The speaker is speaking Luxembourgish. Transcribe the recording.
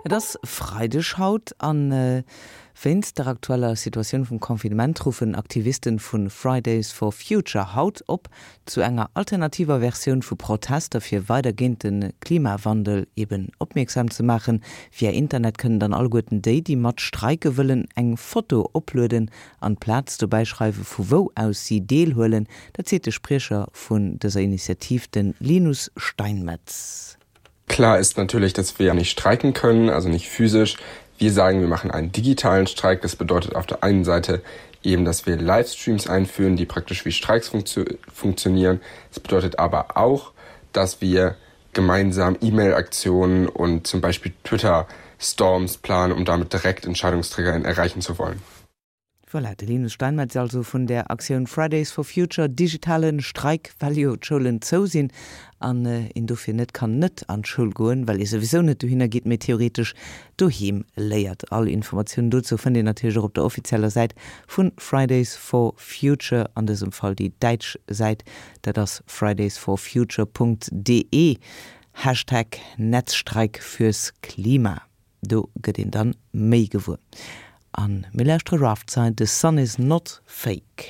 Et ass Freideg haut an wéinst der aktueller Situatioun vum Confinement ruffen Aktivisten vu Fridays for Future haut op zu enger alternativer Versioun vu Protester fir weider géint de Klimawandel eben opmierksam ze maachen. Via Internet kënnen dann alleguerten déi, déi mat streike wëllen, eng Foto oplueden an d'Plaz dobäi schreiwe vu wou aus si deelhuelen. Dat seet de Spriecher vun dëser Initiativ, de Linus Steinmetz. Klar ist natürlich, dass wir nicht streiken können, also nicht physisch. Wir sagen, wir machen einen digitalen Streik. Das bedeutet auf der einen Seite eben, dass wir Livestreams einführen, die praktisch wie Streiks funktio funktionieren. Es bedeutet aber auch, dass wir gemeinsam E-Mail-Aktionen und zum Beispiel Twitter-Storms planen, um damit direkt Entscheidungsträgerinnen erreichen zu wollen. Voilà, de Linus Steinmetz also vun der Aktioun Fridays for Future, digitale Streik, well jo d'Schoulen zou sinn an een dofir net kann net an d'Schoul goen, well ee souwisou net dohinner geet, mee theoretesch doheem léiert. All Informatiounen dozou fënnt een natierlech och op der offizieller Säit vu Fridays for Future, an dësem Fall déi däitsch Säit, dat ass fridaysforfuture.de, Hashtag Netzstreik fürs Klima. Do gëtt een dann méi gewuer. An mir lauschtere Raftside, The Sun Is Not Fake.